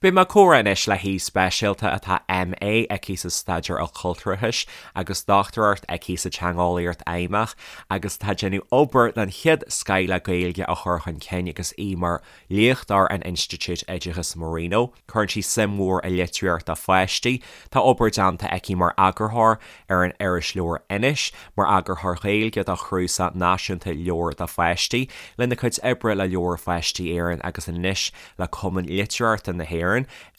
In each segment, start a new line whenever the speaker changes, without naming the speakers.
Beidh mé ag comhrá anois le haoi speisialta atá MA aici sa Staidéar Ilchultúrachais agus Dochtúireacht aici sa Teangeolaíocht Fheidhmeach agus atá ag déanamh obair den chéad scoith le Gaeilge a chur chun cinn agus í mar léachtóir in Institiúid Oideachais Marino. Cuireann sí suim mhór i litríocht do pháistí. Tá obair déanta aici mar eagarthóir ar an irisleabhar Inis, mar eagarthóir Gaeilge do chnuasach náisiúnta leabhar do pháistí, lena cuid oibre le Leabhair Pháistí Éireann agus anois le Cumann Litearthachta na hÉireann.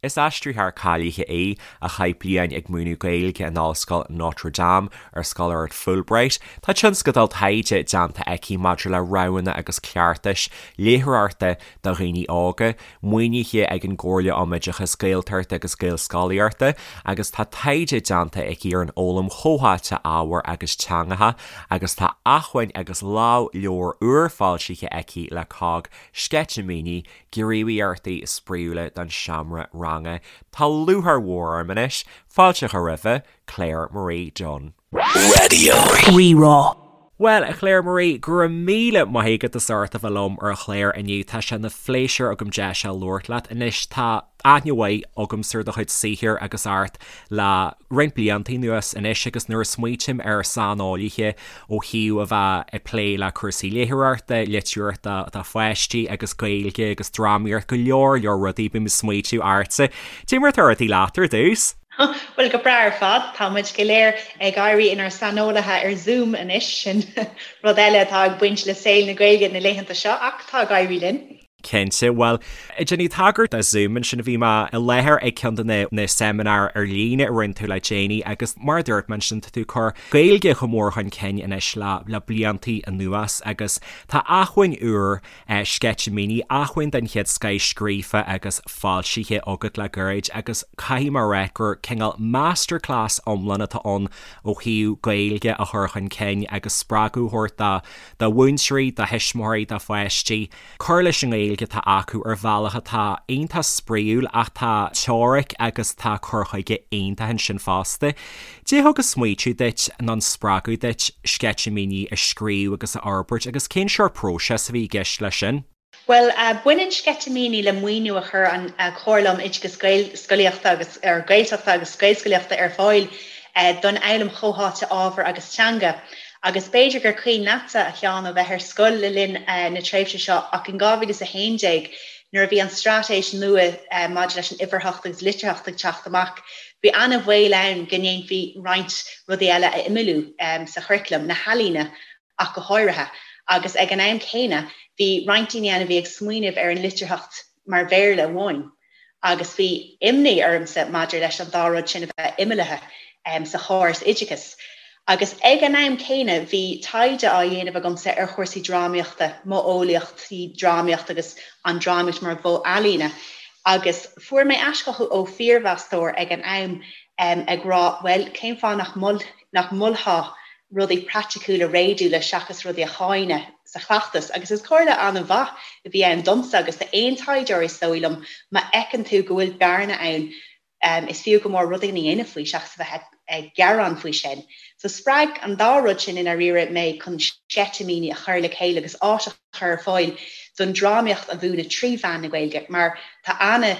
Is aistritheoir cáilithe í, a chaith bliain ag múineadh Gaeilge in Ollscoil Notre Dame ar scoláireacht Fulbright. Tá tionscadal taighde déanta aici maidir le roghanna agus cleachtais léitheoireachta do dhaoine óga, maoinithe ag an gComhairle um Oideachas Gaeltachta agus Gaelscolaíochta, agus tá taighde déanta aici ar an fhoghlaim chomhtháite ábhar agus teangacha agus tá acmhainn agus lámhleabhar úr foilsithe aici le cogg, Sceitimíní Gníomhaíochtaí spraíúla don seomra ranga. Tá lúcháir mhór orm anois fáilte a chur roimhe, Claire Marie Dunne.
Raidió Rí-Rá.
Bhuel, a Claire Marie, go raibh míle maith agat as ucht a bheith liom ar an chlár inniu. Tá sé ina phléisiúr agam deis a labhairt leat. Anois, tá aithne mhaith agamsa ar do chuid saothair agus ort le roinnt blianta anuas anois agus nuair a smaoitím ar saineolaithe ó thaobh a bheith ag plé le cúrsaí léitheoireachta, litríochta do pháistí agus Gaeilge agus drámaíocht, go leor leor rudaí, bím ag smaoitiú ortsa. Cad é mar atá rudaí leat ar dtús?
Bhuel, go breá ar fad. Tá muid go léir ag éirí inár saineolaithe ar Zoom anois, sin rud eile atá ag baint le saol na Gaeilge na laethanta seo ach tá ag éirí linn.
Cinnte. Bhuel, ag déanamh tagairt do Zoom ansin, bhí mé i láthair ag ceann de na na seimineáir ar líne a rinne tú le déanaí agus mar a dúirt mé ansin, tá tú ag cur Gaeilge chomh mór chun cinn anois le le bliantaí anuas agus tá acmhainn úr, Sceitimíní, acmhainn den chéad scoith scríofa agus foilsithe agat le gairid agus caithfidh mé a rá gur cineál masterclass iomlán atá ann ó thaobh Gaeilge a chur chun cinn agus spreagadh a thabhairt do do mhúinteoirí, do thuismitheoirí, do pháistí. cur leis an nGaeilge atá acu ar bhealach atá iontach spraíúil ach tá teoiric agus tá cur chuige iontach ansin fosta. Cad é thug an smaoitiú duit nó an spreagadh duit Sceitimíní a scríobh agus a fhorbairt agus cén sórt próiseas a bhí i gceist leis sin?
Bhuel, baineann Sceitimíní le maoiniú a chuir an Chomhairle um Oideachas Gaelscolaíochta agus Gaeltachta agus Gaelscolaíochta ar fáil don fhoghlaim chomhtháite ábhar agus teanga. Agus b'fhéidir gur cuimhin leatsa, a Sheáin, ó bheith ar scoil le linn na tréimhse seo, ach in 2011, nuair a bhí an straitéis nua maidir leis an uimhearthacht agus litearthacht ag teacht amach, bhí an-bhaol ann go ndéanfaí roinnt rudaí eile a imeallú sa churaclam, na healaíona ach go háirithe. Agus ag an am céanna, bhí roinnt daoine ann a bhí ag smaoineamh ar an litearthacht mar Bhéarla amháin. Agus bhí imní ormsa maidir leis an dá rud sin a bheith imeallaithe sa chóras oideachais. Agus ag an am céanna bhí taighde á dhéanamh agamsa ar chúrsaí drámaíochta, modheolaíochtaí drámaíochta agus an drámaíocht mar mhodh ealaíne. Agus fuair mé aischothú ó phiarmheastóir ag an am ag rá, bhuel, cén fáth nach nach molfá rudaí praiticiúla réadúla seachas rudaí a cháineadh sa chleachtas agus is comhairle an-mhaith a bhí ann domsa agus d'aon taighdeoir is dóigh liom, má fheiceann tú go bhfuil bearna ann is fiú go mór rud éigin a dhéanamh faoi seachas a bheith ag gearán faoi sin. So spreag an dá rud sin i ndáiríre mé chun sceitimíní a chur le chéile agus áis a chur ar fáil don drámaíocht a mhúineadh trí mheán na Gaeilge mar tá ana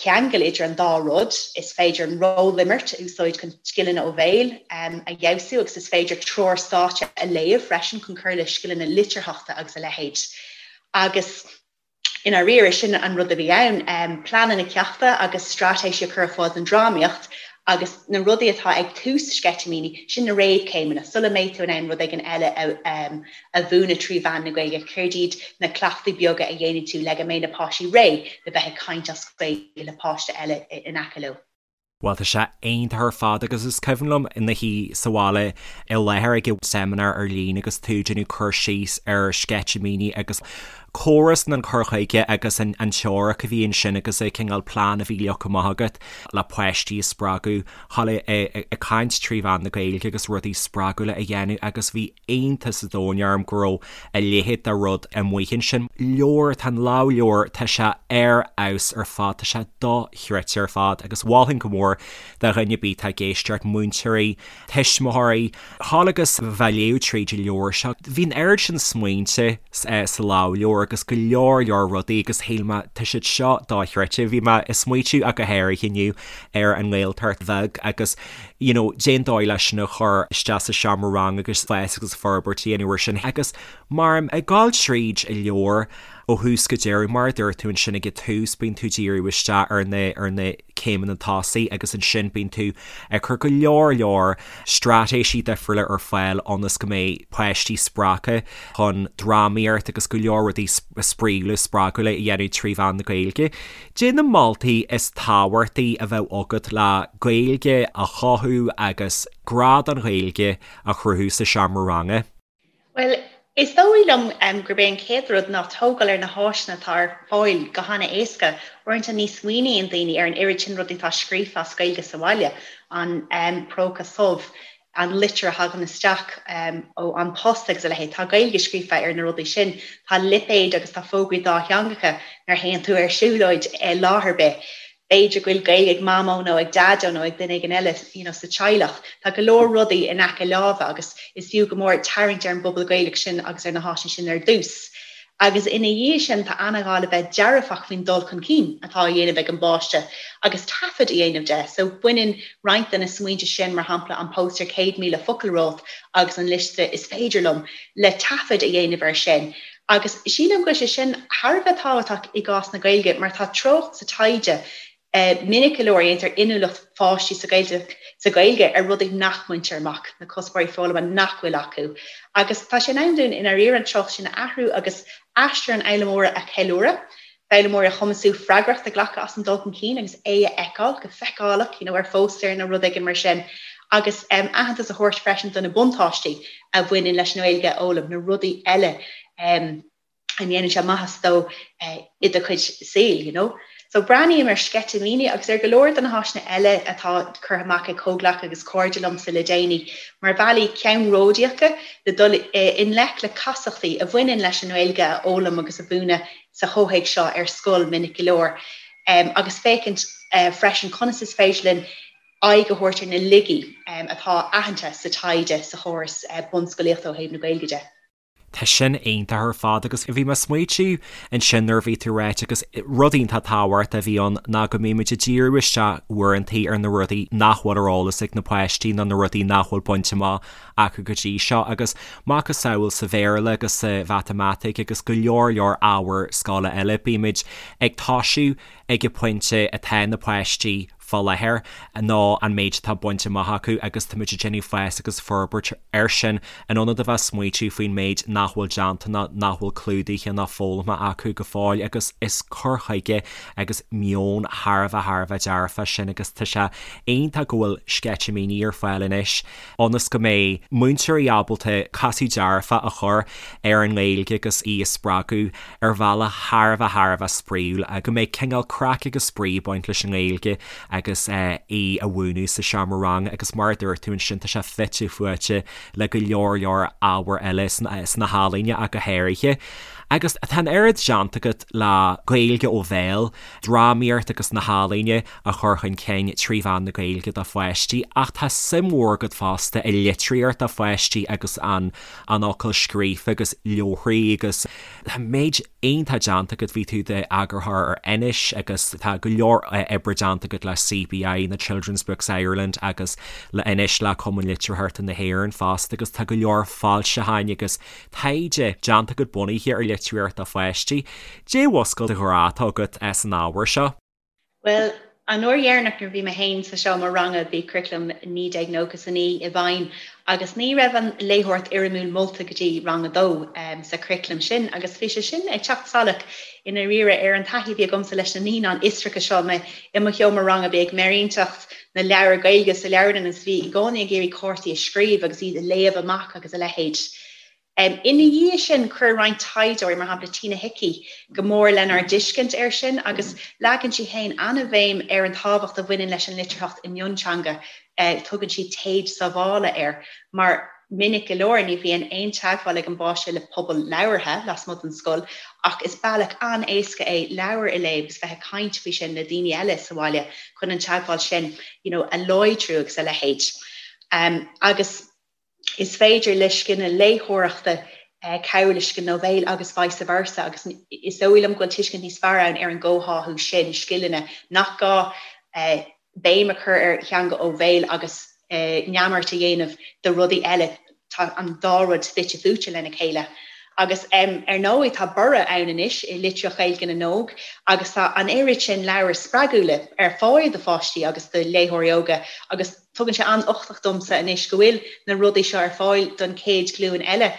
cheangal idir an dá rud. Is féidir an rólimirt a úsáid chun scileanna ó bhéal a fheabhsú agus is féidir treoir stáitse a léamh freisin chun cur le scileanna litearthachta agus a leithéid. Agus i ndáiríre, sin an rud a bhí ann, pleananna ceachta agus straitéisí a chur ar fáil don drámaíocht agus na rudaí atá ag tús sceitimíní, sin na réamhchéimeanna, sula mbeidh tú in ann rud éigin eile a mhúineadh trí mheán na Gaeilge, céard iad na cleachtaí beaga a dhéanfaidh tú le go mbeidh na páistí réidh le bheith ag caint as Gaeilge le páiste eile in aice leo.
Bhuel, tá sé iontach ar fad agus is cuimhin liom i mo shuí sa bhaile i láthair ag an seimineár ar líne agus tú ag déanamh cur síos ar sceitimíní agus córas an cur chuige agus an teoiric a bhí ansin agus an cineál plean a bhí leagtha amach agat le páistí a spreagadh dhul ag caint trí mheán na Gaeilge agus rudaí spreagúla a dhéanamh agus bhí iontas an domhain orm go raibh a leithéid de rud amuigh ansin. Leabhar, tá an lámhleabhar, tá sé ar fheabhas ar fad, tá sé dochreidte ar fad agus mholfainn go mór do dhuine ar bith atá ag éisteacht, múinteoirí, tuismitheoirí, dhul agus bheith ag léamh tríd an leabhar seo. Bhí an oiread sin smaointe sa lámhleabhar. leabhar agus go leor leor rudaí agus shíl mé tá siad seo dochreidte. Bhí mé ag smaoitiú ach go háirithe inniu ar an nGaeltacht bheag agus you know cén dóigh leis sin a chur isteach sa seomra ranga agus fás agus forbairt a dhéanamh ar sin agus mar ag gabháil tríd an leabhar ó thús go deireadh mar a dúirt tú ansin ag an tús bíonn tú ag díriú isteach ar na ar na céimeanna tosaigh agus ansin bíonn tú ag cur go leor leor straitéisí difriúla ar fáil ionas go mbeidh páistí spreagtha chun drámaíocht agus go leor rudaí spraíúla spreagúla a dhéanamh trí mheán na Gaeilge. Cad é na moltaí is tábhachtaí a bheadh agat le Gaeilge a chothú agus grá don Ghaeilge a chruthú sa seomra ranga?
Bhuel, is dóigh liom gurb é an chéad rud ná tógáil ar na háiseanna atá ar fáil go han-éasca. Uaireanta ní smaoiníonn daoine ar an oiread sin rudaí atá scríofa as Gaeilge sa bhaile, an próca subh, an litir a thagann isteach ó An Post agus a leithéid. Tá Gaeilge scríofa ar na rudaí sin. Tá lipéid agus tá fógraí dátheangacha nuair a théann tú ar siúlóid i láthair ar bith. B'fhéidir go bhfuil Gaeilge ag Mamó nó ag Daideo nó ag duine éigin eile you know sa teaghlach. Tá go leor rudaí in aice láimhe agus is fiú go mór tarraingt ar an bpobal Gaelach sin agus ar na háiseanna sin ar dtús. Agus ina dhiaidh sin tá an-ghá le bheith dearfach faoin dul chun cinn atá á dhéanamh ag an bpáiste agus taifead a dhéanamh de. So baineann roinnt de na smaointe sin, mar shampla an póstaer 100,000 focal romhat agus an liosta 'is féidir liom', le taifead a dhéanamh air sin. Agus sílim go bhfuil sé sin thar a bheith tábhachtach i gcás na Gaeilge mar tá treocht sa taighde Minic go leor, déantar inniúlacht pháistí sa Ghaeilge sa Ghaeilge ar rudaí nach mbaintear amach, na cuspóirí foghlama nach bhfuil acu. Agus tá sé in am dúinn i ndáiríre an treocht sin a athrú agus aistear an fhoghlaimeora a cheiliúradh, foghlaimeoirí a chumasú freagracht a ghlacadh as an dul chun cinn agus é a fheiceáil go feiceálach you know ar phóstaer nó rud éigin mar sin, agus aitheantas a thabhairt freisin do na buntáistí a bhaineann leis an nGaeilge a fhoghlaim, na rudaí eile. a ndéanann sé maitheas dó i do chuid saoil, you know. So breathnaím ar Sceitimíní agus ar go leor de na háiseanna eile atá curtha amach ag comhghleacaithe agus cairde liomsa le déanaí mar bhealaí ceannródaíocha le dul i ngleic le casachtaí a bhaineann leis an nGaeilge a fhoghlaim agus a mhúineadh sa chomhthéacs seo ar scoil minic go leor agus féachaint freisin conas is féidir linn aghaidh a thabhairt ar na laigí atá aitheanta sa taighde sa chóras bunscolaíochta ó thaobh na Gaeilge de.
Tá sin iontach ar fad agus bhí mé ag smaoitiú ansin nuair a bhí tú ag ráit agus rud iontach tábhachtach a bhí ann ná go mbímid ag díriú isteach uaireantaí ar na rudaí nach bhfuil ar eolas ag na páistí nó na rudaí nach bhfuil bainte amach acu go dtí seo agus macasamhail sa Bhéarla agus sa Mhatamaitic agus go leor leor ábhair scoile eile bímid ag toisiú ag an bpointe atá na páistí fá láthair nó an méid atá bainte amach acu agus táimid ag déanamh fás agus forbairt air sin in ionad a bheith ag smaoitiú faoin méid nach bhfuil déanta nó nach bhfuil clúdaithe ná foghlamtha acu go fóill agus is cur chuige agus meon thar a bheith thar a bheith dearfach sin agus tá sé iontach go bhfuil sceitimíní ar fáil anois ionas go mbeidh múinteoirí ábalta casadh dearfach a chur ar an nGaeilge agus í a spreagadh ar bhealach thar a bheith thar a bheith spraíúil, go mbeidh cineál craic agus spraoi ag baint leis an nGaeilge agus í a mhúineadh sa seomra ranga agus mar a dúirt tú ansin tá sé fite fuaite le go leor leor ábhair eile sna healaíona ach go háirithe. Agus tá an oiread déanta agat le Gaeilge ó bhéal, drámaíocht agus na healaíona a chur chun cinn trí mheán na Gaeilge do pháistí ach tá suim mhór agat fosta i litríocht do pháistí agus an an fhocal scríofa agus leabharthaí agus tá méid iontach déanta agat, bhí tú i d'eagarthóir ar Anois agus tá go leor oibre déanta agat le CBI, na Children's Books Ireland agus le Anois le Cumann Litearthachta na hÉireann fosta agus tá go leor foilseacháin agus taighde déanta agat bunaithe ar litríocht do pháistí. Cad é a mhúscail do ghrá atá agat san ábhar seo?
Bhuel, an uair dheireanach nuair a bhí mé féin sa seomra ranga bhí curaclam 1999 i bhfeidhm agus ní raibh an léitheoireacht fhoirmiúil molta go dtí rang a dó sa churaclam sin agus bhí sé sin ag teacht salach i ndáiríre ar an taithí a bhí agamsa leis na naíonáin fhiosracha seo mé i mo sheomra ranga bhí ag méirínteacht na leabhar Gaeilge sa leabharlann agus bhí i gcónaí ag iarraidh cártaí a scríobh agus iad a léamh amach agus a leithéid. Ina dhiaidh sin, chuir roinnt taighdeoirí, mar shampla Tina Hickey, go mór lenár dtuiscint air sin agus leagann sí féin an-bhéim ar an tábhacht a bhaineann leis an litearthacht i mionteanga, tugann sí téad sábhála air, mar minic go leor ní bhíonn aon teagmháil ag an bpáiste le pobal labhartha lasmuigh den scoil ach is bealach an-éasca é leabhar a léamh agus bheith ag caint faoi sin le daoine eile sa bhaile chun an teagmháil sin you know a láidriú agus a leithéid. Agus. Is féidir le scileanna léitheoireachta Cabhrú le scileanna ó bhéal agus vice versa agus is dóigh liom go bhfuil tuiscint níos fearr ann ar an gcomhtháthú sin scileanna, nach gá béim a chur ar theanga ó bhéal agus neamart a dhéanamh de rudaí eile, tá an dá rud fite fuaite lena chéile. Agus ar ndóigh tá borradh ann anois i litríocht Ghaeilge na n-óg agus tá an oiread sin leabhair spreagúla ar fáil do pháistí agus do léitheoirí óga agus Tugann sé an-uchtach domsa anois go bhfuil na rudaí seo ar fáil don chéad ghlúin eile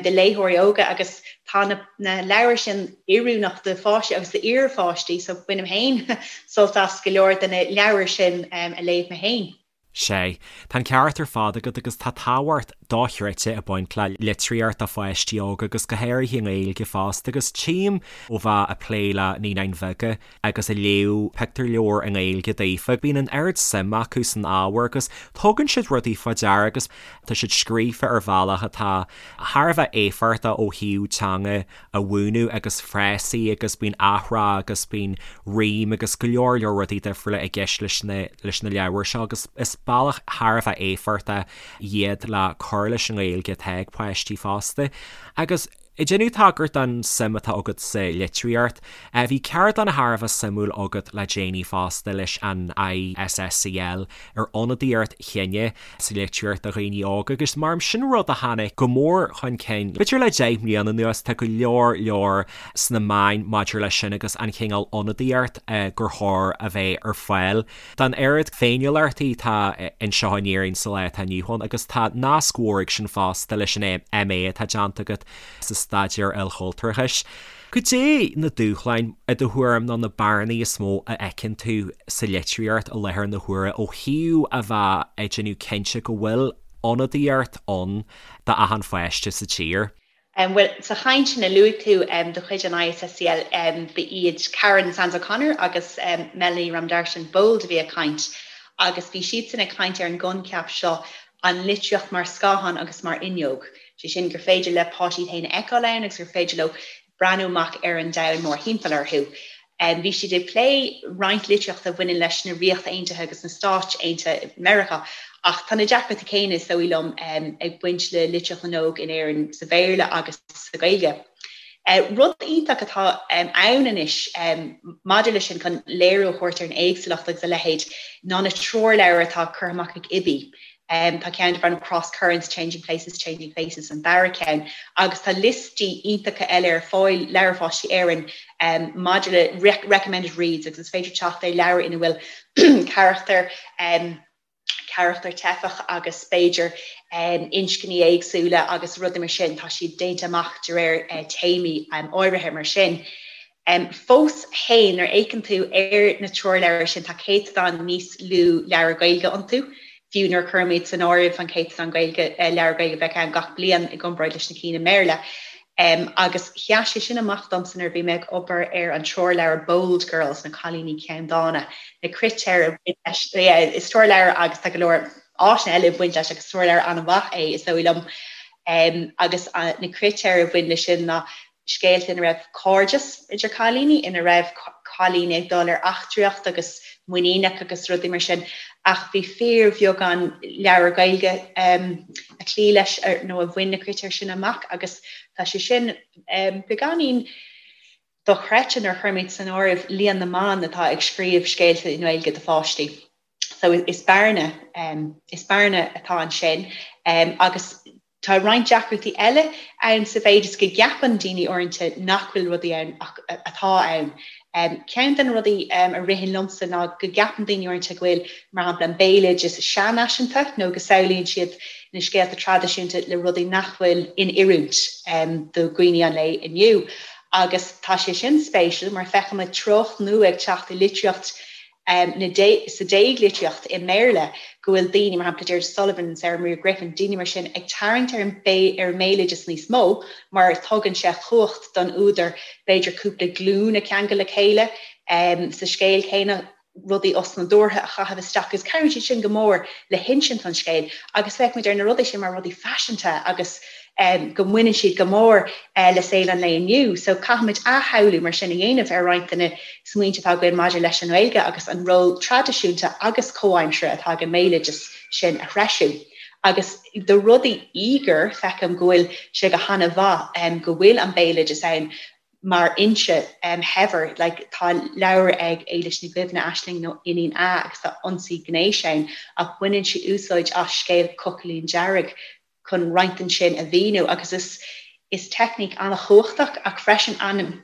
de léitheoirí óga agus tá na leabhair sin oiriúnach do pháistí agus d'iarpháistí so bainim féin sult as go leor de na leabhair sin a léamh mé féin.
Sea, tá an ceart ar fad agat agus tá tábhacht dochreidte ag baint le litríocht do pháistí óga agus go háirithe i nGaeilge fosta agus tchím ó bheith ag plé le naíonáin bheaga agus ag léamh pictiúrleabhar i nGaeilge daofa. Bíonn an oiread suim acu san ábhar agus tugann siad rudaí fá deara agus tá siad scríofa ar bhealach atá thar a bheith éifeachtach ó thaobh teanga a mhúineadh agus frásaí agus bíonn athrá agus bíonn rím agus go leor leor rudaí difriúla i gceist leis na leis na leabhair seo agus is bealach thar a bheith éifeachtach iad le cur leis an nGaeilge atá ag páistí fosta. Agus. Ag déanamh tagairt don suim atá agat sa litríocht, bhí ceardlann thar a bheith suimiúil agat le déanaí fosta leis an ISSCL ar ionadaíocht chine sa litríocht do dhaoine óga agus mar sin rud a tháinig go mór chun cinn b'fhéidir le 10 mbliana anuas, tá go leor leor sna meáin maidir leis sin agus an chineál ionadaíocht gur chóir a bheith ar fáil don oiread féiniúlachtaí atá anseo in Éirinn sa lá atá inniu ann agus tá nasc mhór ag sin fosta leis an MA atá déanta agat sa Staidéar Ilchultúrachais. Cad é na dúshláin, i do thuairim, nó na bearnaí is mó a fheiceann tú sa litríocht i láthair na huaire ó thaobh a bheith ag déanamh cinnte go bhfuil ionadaíocht ann d'achan pháiste sa tír?
Bhuel, sa chaint sin a luaigh tú de chuid an ISSCL, ba iad Karen Sands O'Connor agus Melanie Ramdarshan-Bold a bhí ag caint agus bhí siadsan ag caint ar an gcoincheap seo, an litríocht mar scáthán agus mar fhuinneog, sé sin gur féidir le páistí iad féin a fheiceáil ann agus gur féidir leo breathnú amach ar an domhan mórthimpeall orthu. Bhí siad ag plé roinnt litríochta a bhaineann leis na Ríocht Aontaithe agus na Stáit Aontaithe Meiriceá, ach tá na deacrachtaí céanna, is dóigh liom, ag baint le litríocht na n-óg in Éirinn sa Bhéarla agus sa Ghaeilge. Rud iontach atá ann anois maidir leis sin, chun léiriú a thabhairt ar an éagsúlacht agus a leithéid, ná na treoirleabhair atá curtha amach ag IBBY. Tá ceann darb ainm Cross Currents, Changing Places, Changing Faces an dara ceann agus tá liostaí iontacha eile ar fáil, Leabhair Pháistí Éireann, maidir le recommended reads agus is féidir teacht ar leabhair ina bhfuil carachtar, carachtar teifeach agus b'fhéidir inscní éagsúla agus rudaí mar sin, tá siad déanta amach de réir téamaí áirithe mar sin. Fós féin, nuair a fhéachann tú ar na treoirleabhair sin, tá céatadán níos lú leabhar Gaeilge iontu, fiú nuair a chuirimid san áireamh an céatadán Gaeilge, leabhar Gaeilge a bheadh ann gach bliain i gcomparáid leis na cinn i mBéarla. Agus sheas sé sin amach domsa nuair a bhí mé ag obair ar an treoirleabhar Bold Girls, Na Cailíní Ceanndána, na critéir a bhain leis, yeah, is treoirleabhar agus tá go leor áiseanna eile ag baint leis agus treoirleabhar an-mhaith é, is dóigh liom. Agus na critéir a bhain leis sin ná scéalta ina raibh cairdeas idir cailíní, ina raibh cailíní ag dul ar eachtraíocht agus muiníneach agus rudaí mar sin, ach bhí fíorbheagán leabhar Gaeilge a chloígh leis nó a bhain na critéir sin amach agus tá sé sin beagáinín dochreidte nuair a chuirimid san áireamh líon na mban atá ag scríobh scéalta i nGaeilge do pháistí. So is bearna, is bearna atá ansin agus Tá roinnt deacrachtaí eile ann sa mhéid is go gceapann daoine uaireanta nach bhfuil rudaí ann ach atá ann. Ceann de na rudaí a ritheann liomsa ná go gceapann daoine uaireanta go bhfuil, mar shampla, an béaloideas seanfhaiseanta nó go samhlaíonn siad na scéalta traidisiúnta le rudaí nach bhfuil in oiriúint do dhaoine an lae inniu. Agus tá sé sin spéisiúil mar feicimid treocht nua ag teacht i litríocht na sa déaglitríocht i mBéarla go bhfuil daoine, mar shampla Deirdre Sullivan, Sarah Maria Griffin, daoine mar sin ag tarraingt ar an ar an mbéaloideas níos mó mar tugann sé cumhacht don údar b'fhéidir cúpla glúin a cheangal le chéile sa scéal céanna, rudaí osnádúrtha a chaitheamh isteach agus cabhraíonn siad sin go mór le hinsint an scéil agus feicimid ar na rudaí sin mar rudaí faiseanta agus go mbaineann siad go mór le saol an lae inniu. So caithfimid athshamhlú mar sin a dhéanamh ar roinnt de na smaointe atá againn maidir leis an nGaeilge agus an ról traidisiúnta agus comhaimseartha atá ag an mbéaloideas sin a threisiú. Agus do rudaí íogair, feicim go bhfuil sé go han-mhaith go bhfuil an béaloideas ann mar fhoinse shaibhir. Like, tá leabhar ag Éilis Ní Dhuibhne, Aisling nó Iníon A agus tá ionsaí gnéis ann ach baineann sí úsáid as scéal Cochaillín Dearg chun roinnt den sin a mhíniú agus is is teicníc an-chumhachtach ach freisin an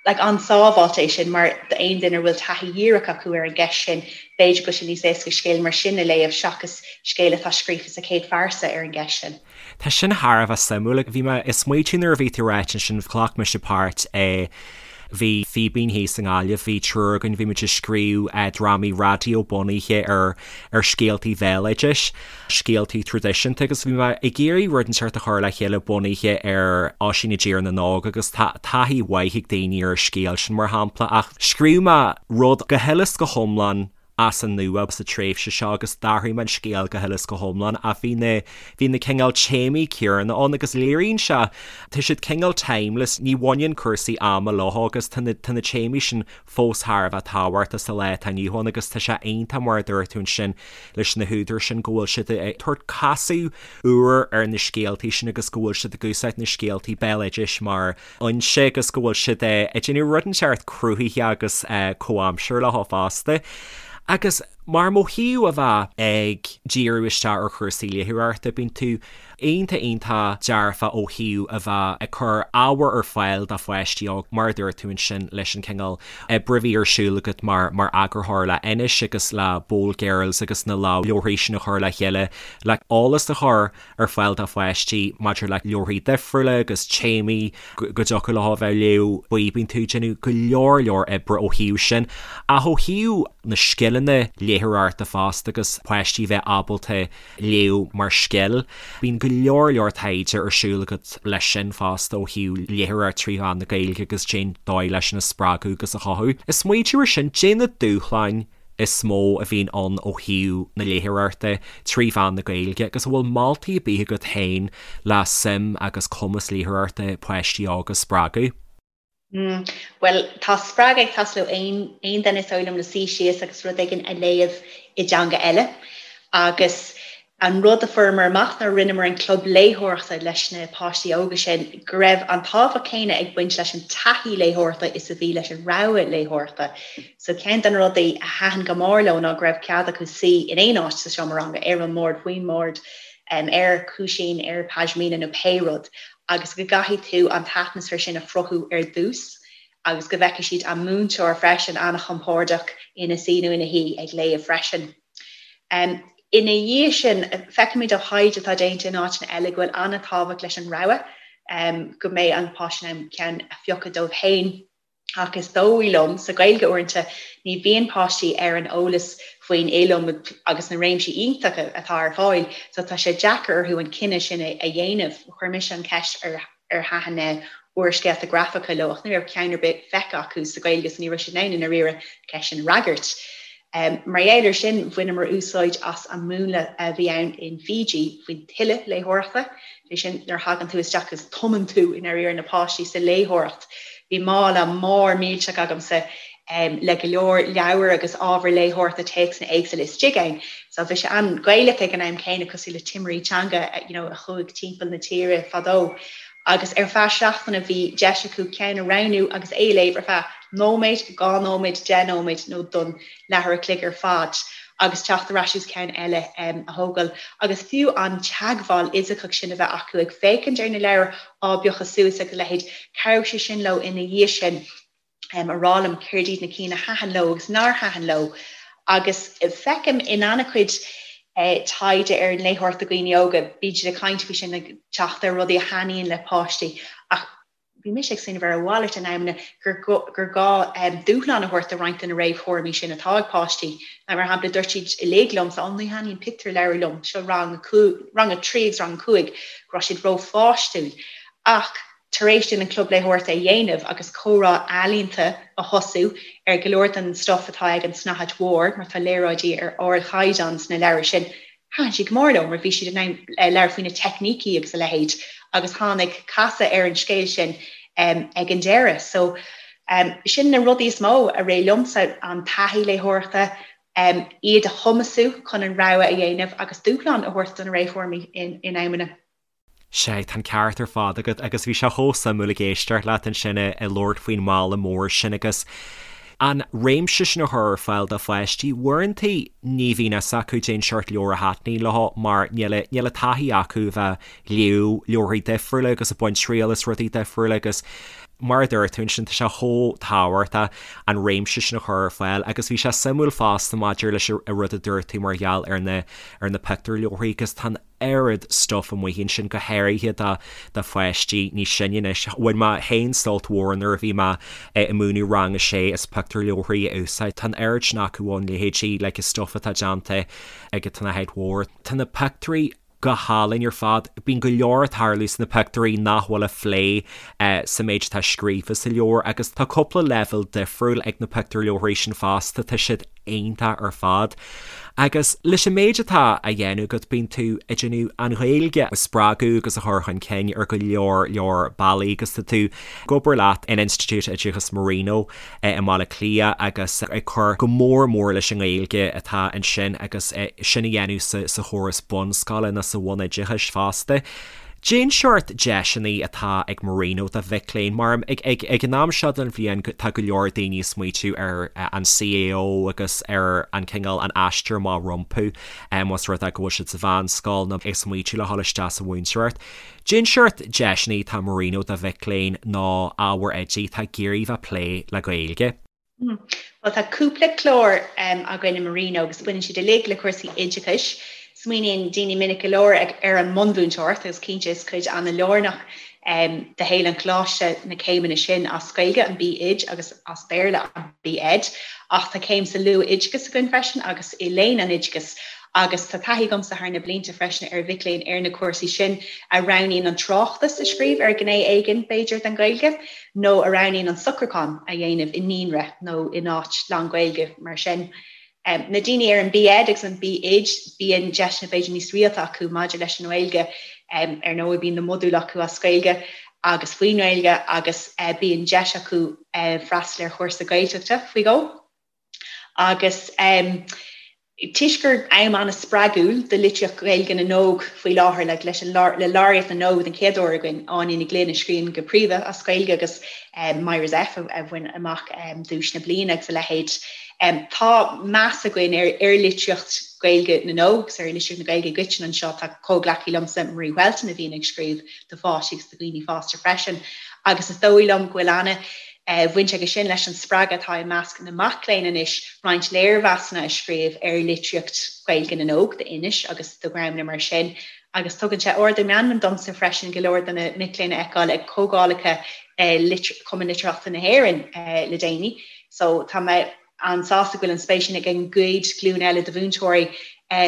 like an-sábháilte é sin mar d'aon duine a bhfuil taithí dhíreach acu ar an gceist sin b'fhéidir go bhfuil sé níos éasca scéal mar sin a léamh seachas scéal atá scríofa sa chéad phearsa ar an gceist sin.
Tá sin thar a bheith suimiúil. Bhí mé ag smaoitiú nuair a bhí tú ag ráit ansin ghlac mise páirt i Bhí Fíbín thíos i nGaillimh, bhí triúr againn, bhí muid ag scríobh drámaí raidió bunaithe ar ar scéaltaí bhéaloidis, scéaltaí traidisiúnta agus bhí mé ag iarraidh rud inteacht a chur le chéile bunaithe ar Oisín i dTír na nÓg agus tá taithí mhaith ag daoine ar an scéal sin mar shampla ach scríobh mé rud go huile is go hiomlán as an nua sa tréimhse seo agus d'athraigh mé an scéal go huile is go hiomlán ach bhí na bhí na cineál téamaí céanna ann agus léiríonn sé tá siad cineál timeless ní bhaineann cúrsaí ama leo agus tá na tá na téamaí sin fós thar a bheith tábhachtach sa lá atá inniu ann agus tá sé iontach mar a dúirt tú ansin leis na húdair sin go bhfuil siad ag tabhairt casadh úr ar na scéaltaí sin agus go bhfuil siad ag úsáid na scéaltaí béaloidis mar fhoinse agus go bhfuil siad ag déanamh rud inteacht cruthaitheach agus comhaimseartha leo fosta. Agus mar ó thaobh a bheith ag díriú isteach ar chúrsaí léitheoireachta, bíonn tú iontach iontach dearfa ó thaobh a bheith ag cur ábhar ar fáil do pháistí óg, mar a dúirt tú ansin leis an cineál oibre a bhí ar siúl agat mar mar eagarthóir le Anois agus le Bold Girls agus na leabharthaí sin a chur le chéile le eolas a chur ar fáil do pháistí maidir le leabharthaí difriúla agus téamaí go dtiocfadh leo a bheith ag léamh faoi. Bíonn tú ag déanamh go leor leor oibre ó thaobh sin. Ach ó thaobh na scileanna léitheoireachta fosta agus páistí a bheith ábalta léamh mar scil, bíonn go leor leor taighde ar siúl agat leis sin fosta ó thaobh léitheoireacht trí mheán na Gaeilge agus cén dóigh leis sin a spreagadh agus a chothú. Ag smaoitiú ar sin, caidé na dúshláin is mó a bhíonn ann ó thaobh na léitheoireachta trí mheán na Gaeilge agus an bhfuil moltaí ar bith agat féin le suim agus cumas léitheoireachta páistí óga a spreagadh?
Mm, bhuel, tá spreagadh ag teastáil ó aon aon duine is dóigh liom le suí síos agus rud éigin a léamh i dteanga eile. Agus An rud a fuaireamar amach nuair a rinneamar an club léitheoireachta leis na páistí óga sin, go raibh an tábhacht céanna ag baint leis an taithí léitheoireachta is a bhí leis an rogha léitheoireachta. So ceann de na rudaí a thaitin go mór leo ná go raibh cead acu suí in aon áit sa seomra ranga, ar an mbord, faoin mbord, ar chúisín, ar pashmina nó pé rud, agus go gcaithfidh tú an t-atmaisféar sin a chruthú ar dtús agus go bhfeicfidh siad an múinteoir freisin an-chompordach ina suí nó ina shuí ag léamh freisin. Ina dhiaidh sin, feicimid ó thaighde atá déanta in áiteanna eile go bhfuil an-tábhacht leis an rogha, go mbeidh an páiste in ann ceann a phiocadh dóibh féin. Ach is dóigh liom, sa Ghaeilge uaireanta, ní bhíonn páistí ar an eolas faoin iliomad agus na réimsí iontacha atá ar fáil, so tá sé deacair orthu an cinneadh sin a dhéanamh. Chuir mise an cheist ar ar thaitin na úrscéalta grafacha leo ach ní raibh ceann ar bith feicthe acu sa Ghaeilge so ní raibh siad in ann i ndáiríre an cheist sin a fhreagairt. Mar gheall ar sin, bhaineamar úsáid as an múnla a bhí ann in Fiji faoin tuile léitheoireachta, sé sin nuair a thagann tú isteach agus tumann tú i ndáiríre na páistí sa léitheoireacht. Bhí mála mór millteach agamsa le go leor leabhar agus ábhar léitheoireachta, téacsanna éagsúla istigh ann. So bhí sé an-Ghaelach ag an am céanna, cosúil le timirí teanga you know a chuaigh timpeall na tíre fadó. Agus ar feadh seachtaine bhí deis acu ceann a roghnú agus é a léamh ar feadh nóiméad, 2 nóiméad, 10 nóiméad nó don leathuair a chloig ar fad agus teacht ar ais agus ceann eile a thógáil. Agus fiú an teagmháil fhisiceach sin a bheith acu ag féachaint ar na leabhair á bpiocadh suas agus a leithéid, chabhraigh sé sin leo ina dhiaidh sin. a rá liom céard iad na cinn a thaitin leo agus nár thaitin leo. Agus feicim in an-chuid taighde ar an léitheoireacht do dhaoine óga, bíonn siad ag caint faoi sin, ag teacht ar rudaí a thaitníonn le páistí ach bhí mise ag smaoineamh ar a mhalairt in amanna gur gur gá dúshlán a thabhairt do roinnt de na réamhthuairimí sin atá ag páistí. Mar shampla, dúirt siad uilig liomsa, 'Ó, ní thaitníonn pictiúrleabhair liom, seo rang rang a 3 agus rang a 5, go raibh siad rópháistiúil. Ach tar éis dúinn an Club Léitheoireachta a dhéanamh agus comhrá ealaíonta a thosú ar go leor den stuif atá ag an tSnáthaid Mhór, mar tá léaráidí ar ardchaighdeán sna leabhair sin, thaitin siad go mór leo mar bhí siad in ann labhairt faoi na teicnící agus a leithéid agus tháinig casadh ar an scéal sin ag an deireadh. So, sin na rudaí is mó a rith liomsa, an taithí léitheoireachta. Iad a chumasú chun an rogha a dhéanamh agus dúshlán a thabhairt do na réamhthuairimí in amanna.
Sea, tá an ceart ar fad agat agus bhí sé chomh suimiúil ag éisteacht leat ansin ag labhairt faoin mbaile mór sin agus an réimse sin a chur ar fáil do pháistí. Uaireanta ní bhíonn fhios acu cén seort leabhar a thaitníonn leo mar níl níl an taithí acu a bheith ag léamh leabharthaí difriúla agus ag baint triail as rudaí difriúla agus mar a dúirt tú ansin tá sé chomh tábhachtach an réimse sin a chur ar fáil agus bhí sé suimiúil fosta maidir leis an rud a dúirt tú mar gheall ar na ar na pictiúrleabharthaí agus tá an oiread stuff amuigh ansin go háirithe do do pháistí níos sine anois. Bhain mé féin sult mhór nuair a bhí mé ag múineadh rang a sé as pictiúrleabharthaí a úsáid. Tá an oiread sin acu ann leithéidí like an stuff atá déanta ag an tSnáthaid Mhór. Tá na pictiúirí go hálainn ar fad. Bíonn go leor ag tarlú sna pictiúirí nach bhfuil á phlé sa méid atá scríofa sa leabhar agus tá cúpla leibhéal difriúil ag na pictiúrleabharthaí sin fosta, tá siad iontach ar fad. Agus leis an méid atá á dhéanamh agat, bíonn tú ag déanamh an Ghaeilge a spreagadh agus a chur chun cinn ar go leor leor bealaí agus tá tú ag obair leat in Institiúid Oideachais Marino i mBaile Átha Cliath agus ag cur go mór mór leis an nGaeilge atá ansin agus sin a dhéanamh sa chóras bunscoile nó sa bhunoideachais fosta. Cén seort deiseanna atá ag Marino do mhic léinn? Mar ag an am seo den bhliain tá go leor daoine ag smaoitiú ar an CAO agus ar an cineál an aistear amach rompu más rud é go bhfuil siad sa mheánscoil nó ag smaoitiú le dhul isteach sa mhúinteoireacht. Cén seort deiseanna atá Marino do mhic léinn nó ábhair oidí atá ag iarraidh bheith ag plé le Gaeilge?
Bhuel, tá cúpla clár againn i Marino agus baineann siad uilig le cúrsaí oideachais. Smaoiníonn daoine minic go leor ar an mbunmhúinteoireacht agus cinnte is cuid an-lárnach de shaol an choláiste na céimeanna sin as Gaeilge, an B.Oid, agus as Béarla, an B.Ed. Ach tá céim sa luath-oideachas againn freisin agus i léann an oideachais Agus tá taithí agamsa thar na blianta freisin ar mhic léinn ar na cúrsaí sin a roghnaíonn an tráchtas a scríobh ar ghné éigin, b'fhéidir, den Ghaeilge, nó a roghnaíonn an socrúchán a dhéanamh i naíonra nó in áit lán-Ghaeilge mar sin. Na daoine ar an B.Ed agus an B.Oid, bíonn deiseanna b'fhéidir níos rialta acu maidir leis an nGaeilge. Ar ndóigh, bíonn na modúil acu as Gaeilge agus faoin nGaeilge agus bíonn deis acu freastal ar chúrsa Gaeltachta faoi dhó. Agus toisc gur am an-spreagúil do litríocht Ghaeilge na n-óg faoi láthair, like, leis an le Laureate na nÓg den chéad uair againn, Áine Ní Ghlinn a scríonn go príomha as Gaeilge agus Myra Zepf a bhain amach duais na bliana agus a leithéid. Tá meas againn ar ar litríocht Ghaeilge na n-óg agus ar litríocht na Gaeilge i gcoitinne anseo. Tá comhghleacaí liomsa, Marie Whelton, a bhíonn ag scríobh do pháistí agus do dhaoine fásta freisin agus is dóigh liom go bhfuil ana bhaint aige sin leis an spreagadh atá i measc na mac léinn anois roinnt léirmheasanna a scríobh ar litríocht Ghaeilge na n-óg d'Inis agus do dhreamanna mar sin agus tugann sé ardú meanman domsa freisin go leor de na mic léinn a fheiceáil ag comhdhálacha Chumann Litearthachta na hÉireann le déanaí. So tá mé an-sásta go bhfuil an spéis sin ag an gcéad ghlúin eile de mhúinteoirí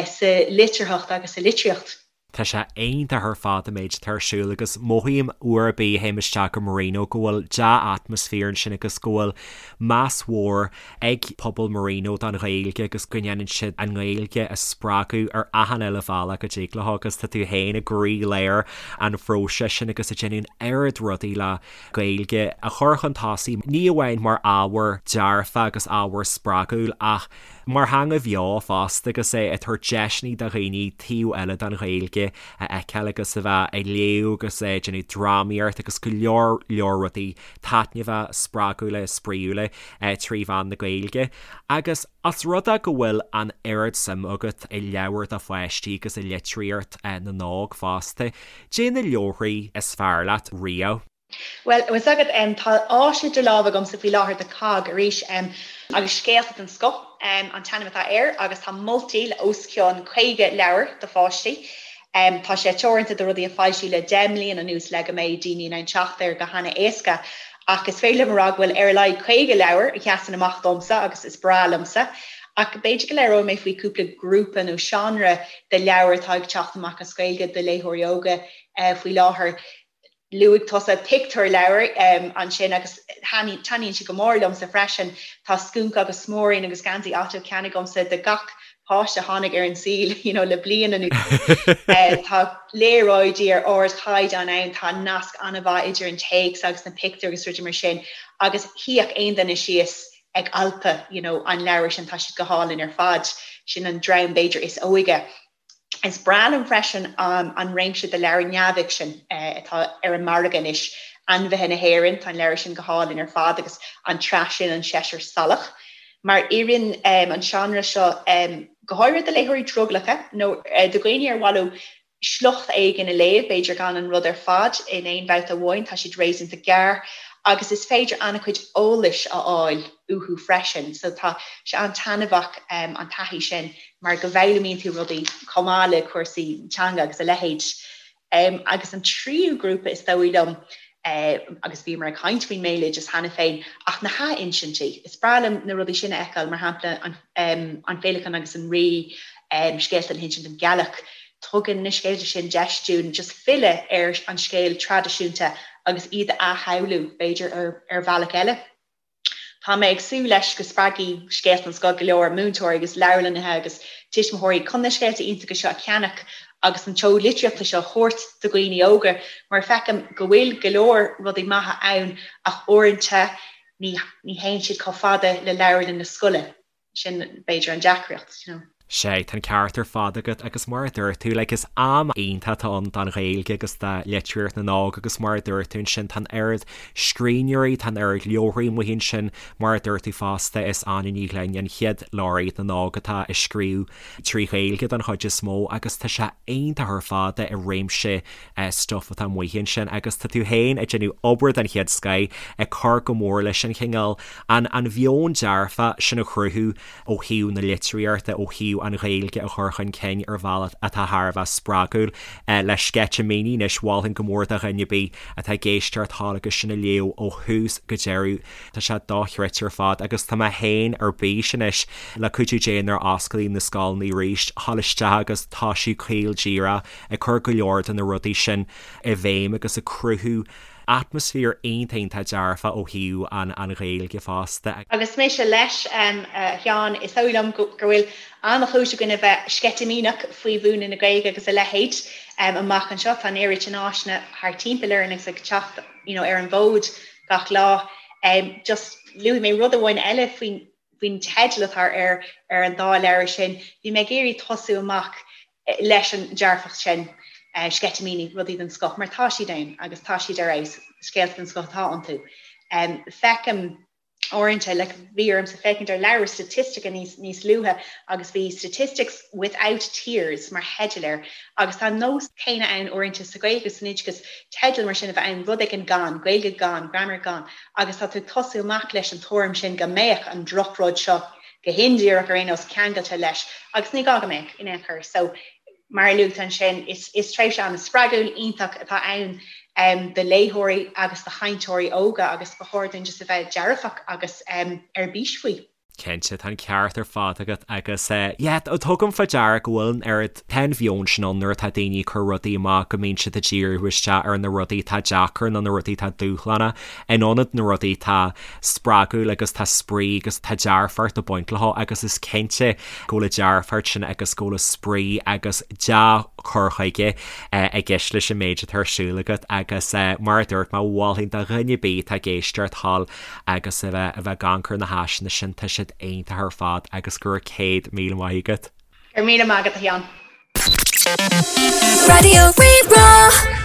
sa litearthacht agus sa litríocht.
Tá sé iontach ar fad an méid atá ar siúl agus mothaím uair ar bith a théim isteach go Marino go bhfuil dea-atmaisféar ansin agus go bhfuil meas mhór ag pobal Marino don Ghaeilge agus go ndéanann siad an Ghaeilge a spreagadh ar achan uile bhealach go dtig leo agus tá tú féin i gcroílár an phróisis sin agus ag déanamh an oiread rudaí le Gaeilge a chur chun tosaigh ní amháin mar ábhar dearfa agus ábhar spreagúil ach mar theanga bheo fosta agus é ag tabhairt deiseanna do dhaoine taobh eile den Ghaeilge a fheiceáil agus a bheith ag léamh agus ag déanamh drámaíocht agus go leor leor rudaí taitneamhacha, spreagúla, spraíúla trí mheán na Gaeilge. Agus os rud é go bhfuil an oiread suim agat i leabhair do pháistí agus i litríocht na n-óg fosta, caidé na leabharthaí is fearr leat riamh?
Bhuel, bhfuil 's agat, tá áis idir lámha agamsa faoi láthair do COGG arís, agus Scéalta den Scoth an t-ainm atá air, agus tá moltaí le os cionn 50 leabhar do pháistí. Tá sé teoranta do rudaí a foilsíodh le 10 mbliana anuas le go mbeidh daoine in ann teacht air go hana-éasca, ach is féidir liom a rá go bhfuil ar a laghad 50 leabhar a sheasann amach domsa agus is breá liomsa. Ach b'fhéidir go labhróidh mé faoi cúpla grúpa nó seánra de leabhair atá ag teacht amach as Gaeilge do léitheoirí óga faoi láthair. Luaigh tusa pictiúrleabhair ansin agus taitníonn siad go mór liomsa freisin. Tá Scúnc agus Smuairín agus Geansaí Otto ceannaithe agamsa do gach páiste a tháinig ar an saol you know le bliain anuas. Tá léaráidí ar ardchaighdeán ann, tá nasc an-mhaith idir an téacs agus na pictiúir agus rudaí mar sin agus shuífeadh aon duine síos. ag alpadh you know an leabhar sin, tá siad go hálainn ar fad. Sin an dream b'fhéidir is óige. Is breá liom freisin an réimse de leabhair neamhfhicsin atá ar an margadh anois, Ainmhithe na hÉireann, tá an leabhar sin go hálainn ar fad agus an tsraith sin An Seisear Salach. Mar oireann an seánra seo go háirithe do léitheoirí drogallacha nó do dhaoine ar mhaith leo sliocht éigin a léamh, b'fhéidir gan an rud ar fad in aon bhabhta amháin, tá siad réasúnta gearr agus is féidir an-chuid eolais a fháil uathu freisin. So tá sé an-taitneamhach an taithí sin mar go bhfoghlaimíonn tú rudaí chomh maith le cúrsaí teanga agus a leithéid. Agus an tríú grúpa is dóigh liom, agus bhíomar ag caint faoin mbéaloideas cheana féin, ach na hathinsintí. Is breá liom na rudaí sin a fheiceáil, mar shampla An Féileacán agus an Rí, scéalta le hinsint don ghealach. Tugann na scéalta sin deis dúinn just filleadh ar an scéal traidisiúnta agus iad a athshamhlú, b'fhéidir, ar bhealach eile. Tá mé ag súil leis go spreagfaidh Scéalta den Scoth go leor múinteoirí agus leabharlannaithe agus tuismitheoirí chun na scéalta iontacha seo a cheannach agus an tseoid litríochta seo a thabhairt do dhaoine óga mar feicim go bhfuil go leor rudaí maithe ann ach uaireanta ní théann siad chomh fada le leabharlann na scoile. Sin, b'fhéidir, an deacracht, you know.
Sea, tá an ceart ar fad agat agus mar a dúirt tú, like, is am iontach atá ann don Ghaeilge agus do litríocht na n-óg agus mar a dúirt tú ansin, tá an oiread scríbhneoirí, tá an oiread leabharthaí amuigh ansin, mar a dúirt tú fosta, is Áine Ní Ghlinn an chéad leabhraí na n-óg atá á scríobh trí Ghaeilge don chuid is mó agus tá sé iontach ar fad i réimse stuif atá amuigh ansin agus tá tú féin ag déanamh obair den chéad scoith ag cur go mór leis an chineál, an an mheon dearfach sin a chruthú ó thaobh na litríochta, ó thaobh an Ghaeilge a chur chun cinn ar bhealach atá thar a bheith spreagúil. Le Sceitimíní anois, mholfainn go mór do dhuine ar bith atá ag éisteacht thall agus sin a léamh ó thús go deireadh. Tá sé dochreidte ar fad agus tá mé féin ar bís anois le cuidiú Dé nuair a osclaíonn na scoileanna arís, thall isteach agus tá sí caol díreach ag cur go leor de na rudaí sin i bhfeidhm agus ag cruthú atmaisféar iontach iontach dearfach ó thaobh an an Ghaeilge fosta.
Agus mise leis, a Sheáin, is dóigh liom go bhfuil an-chúis againn a bheith sceitimíneach faoi mhúineadh na Gaeilge agus a leithéid amach anseo. Tá an oiread sin áiseanna thart timpeall orainn agus ag teacht you know ar an bhfód gach lá. Just luafaidh mé rud amháin eile faoin faoin teideal atá ar ar an dá leabhar sin. Bhí mé ag iarraidh tosú amach leis an dearfacht sin, sceitimíní, rudaí den scoth, mar tá siad ann agus tá siad ar fheabhas, scéalta den scoth atá iontu. Feicim uaireanta, like, bhí ormsa féachaint ar leabhar staitistice níos, níos luaithe agus bhí Statistics Without Tears mar theideal air agus tá an nós céanna ann uaireanta sa Ghaeilge san oideachas, teideal mar sin a bheith ann, rud éigin gan, Gaeilge gan, grammar gan, agus tá tú ag tosú amach leis an tuairim sin go mbeadh an drochrud seo go hindíreach ar aon nós, ceangailte leis, agus ní gá go mbeadh in aon chor. So, mar a luaigh tú ansin, is is tréimhse an-spreagúil, iontach atá ann do léitheoirí agus do chainteoirí óga agus ba chóir dúinn just a bheith dearfach agus ar bís faoi.
Cinnte, tá an ceart ar fad agat agus yeah, tugaim faoi deara go bhfuil an oiread, tá an mheon sin ann nuair atá daoine ag cur rudaí amach go mbíonn siad ag díriú isteach ar na rudaí atá deacair nó na rudaí atá dúshlánach in ionad na rudaí atá spreagúil agus tá spraoi agus tá dearfacht ag baint leo agus is cinnte go bhfuil an dearfacht sin agus go bhfuil an spraoi agus dea-chur chuige i gceist leis an méid atá ar siúl agat agus mar a dúirt mé mholfainn do dhuine ar bith atá ag éisteacht thall agus a bheith a bheith ag amharc ar na háiseanna sin tá siad iontach ar fad agus go raibh 100,000 maith agat.
Go raibh míle maith agat a Sheáin.
Raidió Rí-Rá.